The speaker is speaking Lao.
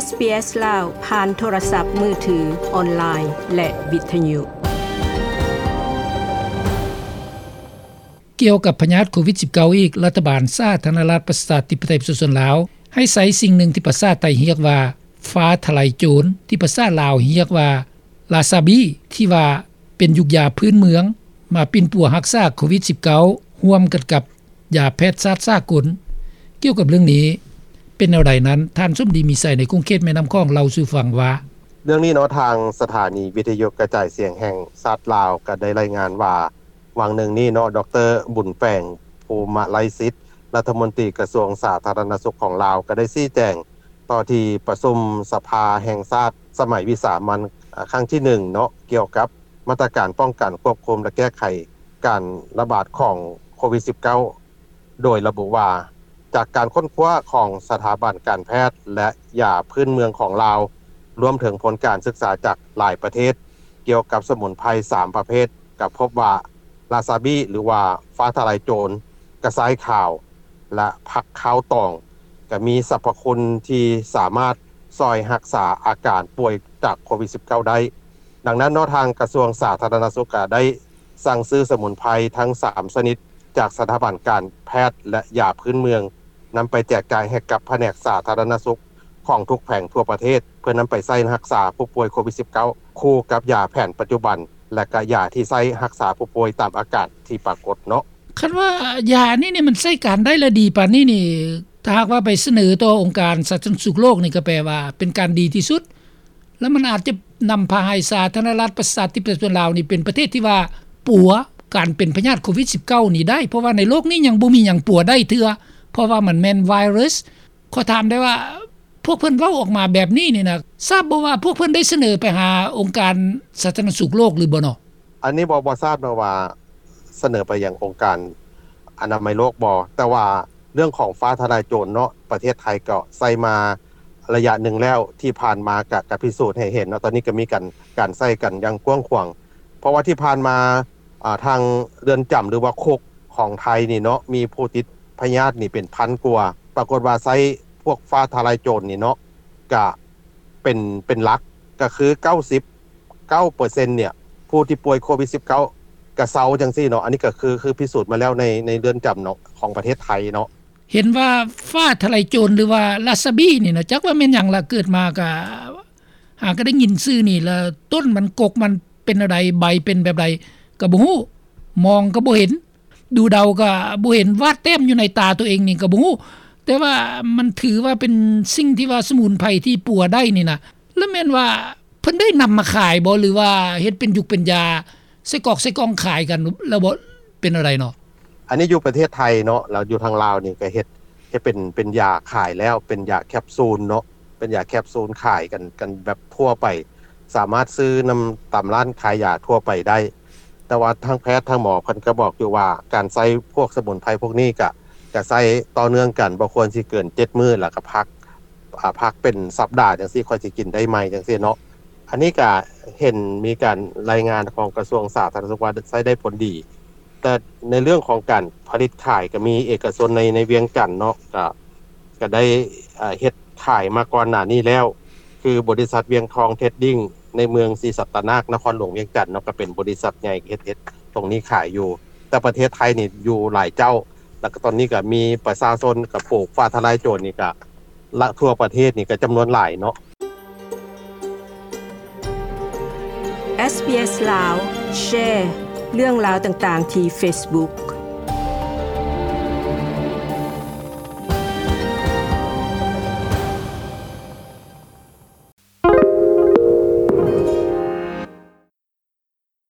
ເອສບີເອສ ລາວ ຜ່ານໂທລະສັບມືຖື, ອອນລາຍ ແລະ ວິທະຍຸ. ກ່ຽວກັບພະຍາດໂຄວິດສິບເກົ້າອີກ, ລັດຖະບານສາທາລະນະລັດປະຊາທິປະໄຕປະຊາຊົນລາວ ໃຫ້ໃຊ້ສິ່ງໜຶ່ງທີ່ພາສາໄທຮຽກວ່າ ຟ້າທະລາຍໂຈນ, ທີ່ພາສາລາວຮຽກວ່າ ລາຊາບີ ທີ່ວ່າເປັນຢູກຢາພື້ນເມືອງ ມາປິ່ນປົວຮັກສາໂຄວິດສິບເກົ້າ ຮ່ວມກັນກັບ ຢາແພດສາດສາກົນ. ກ່ຽວກັບເລື່ອງນີ້ ເປັນແນວໃດນັ້ນ, ທ່ານສົມດີ ມີໄຊ ໃນຂົງເຂດແມ່ນ້ຳຂອງ ເລົ່າສູ່ຟັງວ່າ: ເລື່ອງນີ້ເນາະ, ທາງສະຖານີວິທະຍຸກະຈາຍສຽງແຫ່ງຊາດລາວ ກໍໄດ້ລາຍງານວ່າ ຫວ່າງໜຶ່ງນີ້ເນາະ, ດອກເຕີ ບຸນແປງ ພູມະໄລສິດ ລັດຖະມົນຕີກະຊວງສາທາລະນະສຸກຂອງລາວ ກໍໄດ້ຊີ້ແຈງຕໍ່ທີ່ປະຊຸມສະພາແຫ່ງຊາດສະໄໝວິສາມັນ ອາ ຄັ້ງທີໜຶ່ງເນາະ, ກ່ຽວກັບມາດຕະການປ້ອງກັນ, ຄວບຄຸມ ແລະ ແກ້ໄຂ ການລະບາດຂອງໂຄວິດສິບເກົ້າ ໂດຍລະບຸວ່າ ຈາກການຄົ້ນຄວ້າຂອງສະຖາບັນການແພດ ແລະ ຢາພື້ນເມືອງຂອງລາວ, ລວມເຖິງຜົນການສຶກສາຈາກຫຼາຍປະເທດ ກ່ຽວກັບສະໝຸນໄພສາມປະເພດ, ກໍພົບວ່າ ລາຊາບີ ຫຼືວ່າ ຟ້າທະລາຍໂຈນ, ກະຊາຍຂາວ ແລະ ຜັກຄາວຕອງ ກໍມີສັບພະຄຸນທີ່ສາມາດຊ່ອຍຮັກສາອາການປ່ວຍຈາກໂຄວິດສິບເກົ້າໄດ້. ດັ່ງນັ້ນເນາະ, ທາງກະຊວງສາທາລະນະສຸກກໍໄດ້ສັ່ງຊື້ສະໝຸນໄພທັງສາມຊະນິດ ຈາກສະຖາບັນການແພດ ແລະ ຢາພື້ນເມືອງ ນຳໄປແຈກຈ່າຍໃຫ້ກັບພະແນກສາທາລະນະສຸກຂອງທຸກແຂວງທົ່ວປະເທດ ເພື່ອນຳໄປໃຊ້ຮັກສາຜູ້ປ່ວຍໂຄວິດສິບເກົ້າ ຄູ່ກັບຢາແຜນປັດຈຸບັນ ແລະ ກະຢາທີ່ໃຊ້ຮັກສາຜູ້ປ່ວຍຕາມອາການທີ່ປາກົດເນາະ. ຄັນວ່າຢານີ້ນີ້ມັນໃຊ້ການໄດ້ ແລະ ດີປານນີ້ນີ້, ຖ້າຫາກວ່າໄປສະເໜີຕໍ່ອົງການສາທາລະນະສຸກໂລກນີ້ ກໍແປວ່າເປັນການດີທີ່ສຸດ, ແລ້ວມັນອາດຈະນຳພາໃຫ້ສາທາລະນະລັດປະຊາທິປະໄຕປະຊາຊົນລາວນີ້ ເປັນປະເທດທີ່ວ່າປົວການເປັນພະຍາດໂຄວິດສິບເກົ້ານີ້ໄດ້, ເພາະວ່າໃນໂລກນີ້ຍັງບໍ່ມີຫຍັງປົວໄດ້ເທື່ອ, ເພາະວ່າມັນແມ່ນໄວຣັສ. ຂໍຖາມໄດ້ວ່າ ພວກເພິ່ນເວົ້າອອກມາແບບນີ້ນີ້ນະ, ຊາບບໍ່ວ່າພວກເພິ່ນໄດ້ສະເໜີໄປຫາອົງການສາທາລະນະສຸກໂລກຫຼືບໍ່ເນາະ? ອັນນີ້ບໍ່ ບໍ່ຊາບເນາະວ່າສະເໜີໄປຍັງອົງການອະນາໄມໂລກບໍ່, ແຕ່ວ່າເລື່ອງຂອງຟ້າທະລາຍໂຈນເນາະ, ປະເທດໄທກໍໃຊ້ມາໄລຍະໜຶ່ງແລ້ວ, ທີ່ຜ່ານມາກໍ ກໍພິສູດໃຫ້ເຫັນເນາະ, ຕອນນີ້ກໍມີການ ການໃຊ້ກັນຢ່າງກວ້າງຂວາງ, ເພາະວ່າທີ່ຜ່ານມາ ອ່າ ທາງເຮືອນຈຳ ຫຼືວ່າຄຸກຂອງໄທນີ້ເນາະ ມີຜູ້ຕິດພະຍາດນີ້ເປັນພັນກວ່າ, ປາກົດວ່າໃຊ້ພວກຟ້າທະລາຍໂຈນນີ້ເນາະ ກະເປັນ ເປັນຫຼັກ ກະຄືເກົ້າສິບເກົ້າເປີເຊັນເນຍ ຜູ້ທີ່ປ່ວຍໂຄວິດສິບເກົ້າກະເຊົາຈັ່ງຊີ້ເນາະ. ອັນນີ້ກະຄື ຄືພິສູດມາແລ້ວໃນ ໃນເຮືອນຈຳເນາະ ຂອງປະເທດໄທເນາະ. ເຫັນວ່າຟ້າທະລາຍໂຈນ ຫຼືວ່າລາຊາບີນີ້ນະ ຈັກວ່າແມ່ນຫຍັງລະ, ເກີດມາກະ ຫາກໍໄດ້ຍິນຊື່ນີ້ລະ, ຕົ້ນມັນ ກົກມັນເປັນແນວໃດ, ໃບເປັນແບບໃດກໍບໍ່ຮູ້, ມອງກໍບໍ່ເຫັນ, ດູເດົາກໍບໍ່ເຫັນ, ວາດແຕ້ມຢູ່ໃນຕາຕົວເອງນີ້ກໍບໍ່ຮູ້, ແຕ່ວ່າມັນຖືວ່າເປັນສິ່ງທີ່ວ່າສະໝຸນໄພທີ່ປົວໄດ້ນີ້ນະ. ລະແມ່ນວ່າເພິ່ນໄດ້ນຳມາຂາຍບໍ່ ຫຼືວ່າເຮັດເປັນຢຸກເປັນຢາໃສ່ກອກໃສ່ກ່ອງຂາຍກັນແລ້ວບໍ່ ເປັນແນວໃດເນາະ? ອັນນີ້ຢູ່ປະເທດໄທເນາະ, ແລ້ວຢູ່ທາງລາວນີ້ກໍເຮັດ ເຮັດເປັນ ເປັນຢາຂາຍແລ້ວ, ເປັນຢາແຄບຊູນເນາະ, ເປັນຢາແຄບຊູນຂາຍກັນ ກັນແບບທົ່ວໄປ, ສາມາດຊື້ນຳຕາມຮ້ານຂາຍຢາທົ່ວໄປໄດ້. ແຕ່ວ່າທາງແພດທາງໝໍເພິ່ນກໍບອກຢູ່ວ່າ ການໃຊ້ພວກສະໝຸນໄພພວກນີ້ກະ ກະໃຊ້ຕໍ່ເນື່ອງກັນ, ບໍ່ຄວນຊິເກີນເຈັດມື້ ແລ້ວກໍພັກ ອາ ພັກເປັນສັບດາຈັ່ງຊີ້ ຄ່ອຍຊິກິນໄດ້ໃໝ່ຈັ່ງຊີ້ເນາະ. ອັນນີ້ກະເຫັນມີການລາຍງານຂອງກະຊວງສາທາລະນະສຸກວ່າໃຊ້ໄດ້ຜົນດີ, ແຕ່ໃນເລື່ອງຂອງການຜະລິດຂາຍກໍມີເອກະຊົນໃນ ໃນວຽງຈັນເນາະ ກະ ກະໄດ້ ເຮັດຂາຍມາກ່ອນໜ້ານີ້ແລ້ວ, ຄືບໍລິສັດວຽງທອງເທຣດດິ້ງ ໃນເມືອງສີສັດຕະນາກ ນະຄອນຫຼວງວຽງຈັນເນາະ, ກໍເປັນບໍລິສັດໃຫຍ່ເຮັດ ເຮັດຕົງນີ້ຂາຍຢູ່. ແຕ່ປະເທດໄທນີ້ຢູ່ຫຼາຍເຈົ້າ, ແລ້ວກໍຕອນນີ້ກໍມີປະຊາຊົນກໍປູກຟ້າທະລາຍໂຈນນີ້ກໍ ລະ ທົ່ວປະເທດນີ້ກໍຈຳນວນຫຼາຍເນາະ. ເອສບີເອສ ລາວ ແຊເລື່ອງລາວຕ່າງໆທີ່ເຟສບຸກ